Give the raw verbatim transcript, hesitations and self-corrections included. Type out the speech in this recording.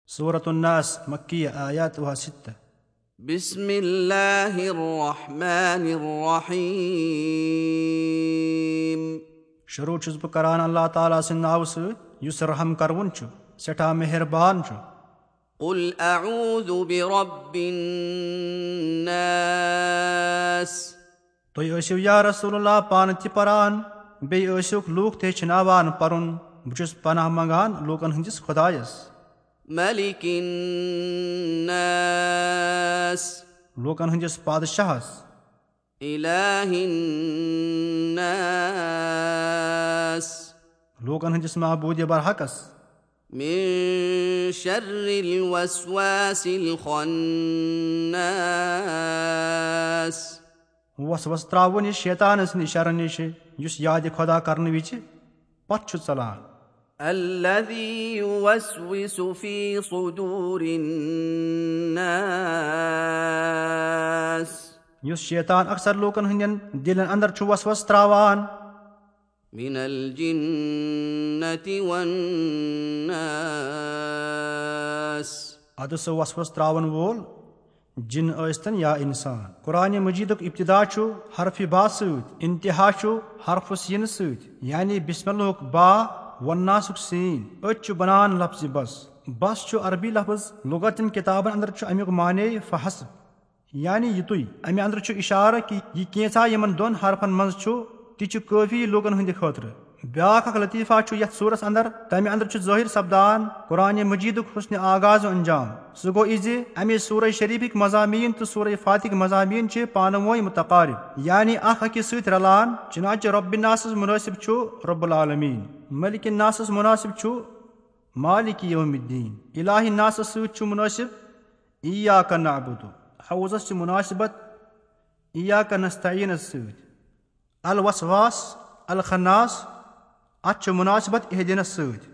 سورة الناس، مکیہ، آیاتها ستہ۔ بسم الله الرحمن الرحيم۔ شروع چھُس بہٕ کران اللہ تعالیٰ سٕنٛدِ ناوٕ سۭتۍ، یُس رحم کروُن چھُ، سٮ۪ٹھاہ مہربان چھُ۔ قل أعوذ برب الناس۔ تُہۍ ٲسِو یا رسول اللہ پانہٕ تہِ پران، بیٚیہِ ٲسِوکھ لوٗکھ تہِ ہیٚچھناوان پرُن۔ بہٕ چھُس پناہ منگان لوٗکن ہٕنٛدِس خۄدایس، ملك الناس۔ لوٗکن ہٕنٛدِس پادشاہس، إله الناس۔ لوٗکن ہٕنٛدِس معبوٗدِ برحقس۔ من شر الوسواس الخناس۔ وسوس تراوُن یہِ شیطان سٕنٛدِ شرٕ نِش، یُس یادِ خۄدا کرنہٕ وِزِ پتھ چھُ ژلان۔ الذي يوسوس في صدور الناس۔ یُس شیطان اکثر لوٗکن ہٕنٛدٮ۪ن دِلن اندر چھُ وسوس تراوان۔ من الجنة والناس۔ ادٕ سُہ وسوس تراون وول جِن ٲسۍتن یا انسان۔ قرآن مجیدُک ابتدا چھُ حرف با سۭتۍ، انتہا چھُ حرف سین سۭتۍ، یعنی بسم اللہُک با، والناسُک سین۔ أتۍ چھُ بنان لفظِ بس۔ بس چھُ عربی لفظ، لغتن کتابن اندر چھُ امیُک معنی فحسب، یعنی یِتُے۔ امہِ اندر چھُ اشارٕ کہِ یہِ کینژھا یِمن دۄن حرفن منز چھُ، تہِ چھُ کٲفی لوٗکن ہٕنٛدِ خٲطرٕ۔ بیاکھ اکھ لطیفہ چھُ یتھ سورس اندر، تمہِ اندر چھُ ظٲہر سپدان قرآن مجیدُک حسن آغاز و انجام۔ سُہ گوٚو یہِ زِ امہِ سورہ شریفٕکۍ مضامین تہٕ سورہ فاتحٕکۍ مضامین چھِ پانہٕ وٲنۍ متقارب، یعنی اکھ أکِس سۭتۍ رلان۔ چنانچہ رب الناسس مناسب چھُ رب العالمین، ملک الناسس مناسب چھُ مالک یوم الدین، الہ الناسس سۭتۍ چھُ مناسب ایاک نعبد۔ حوزس چھِ مناسبت ایاک نستعینس سۭتۍ۔ الوسواس الخناس، اتھ چھِ مناسبت اہدنس سۭتۍ۔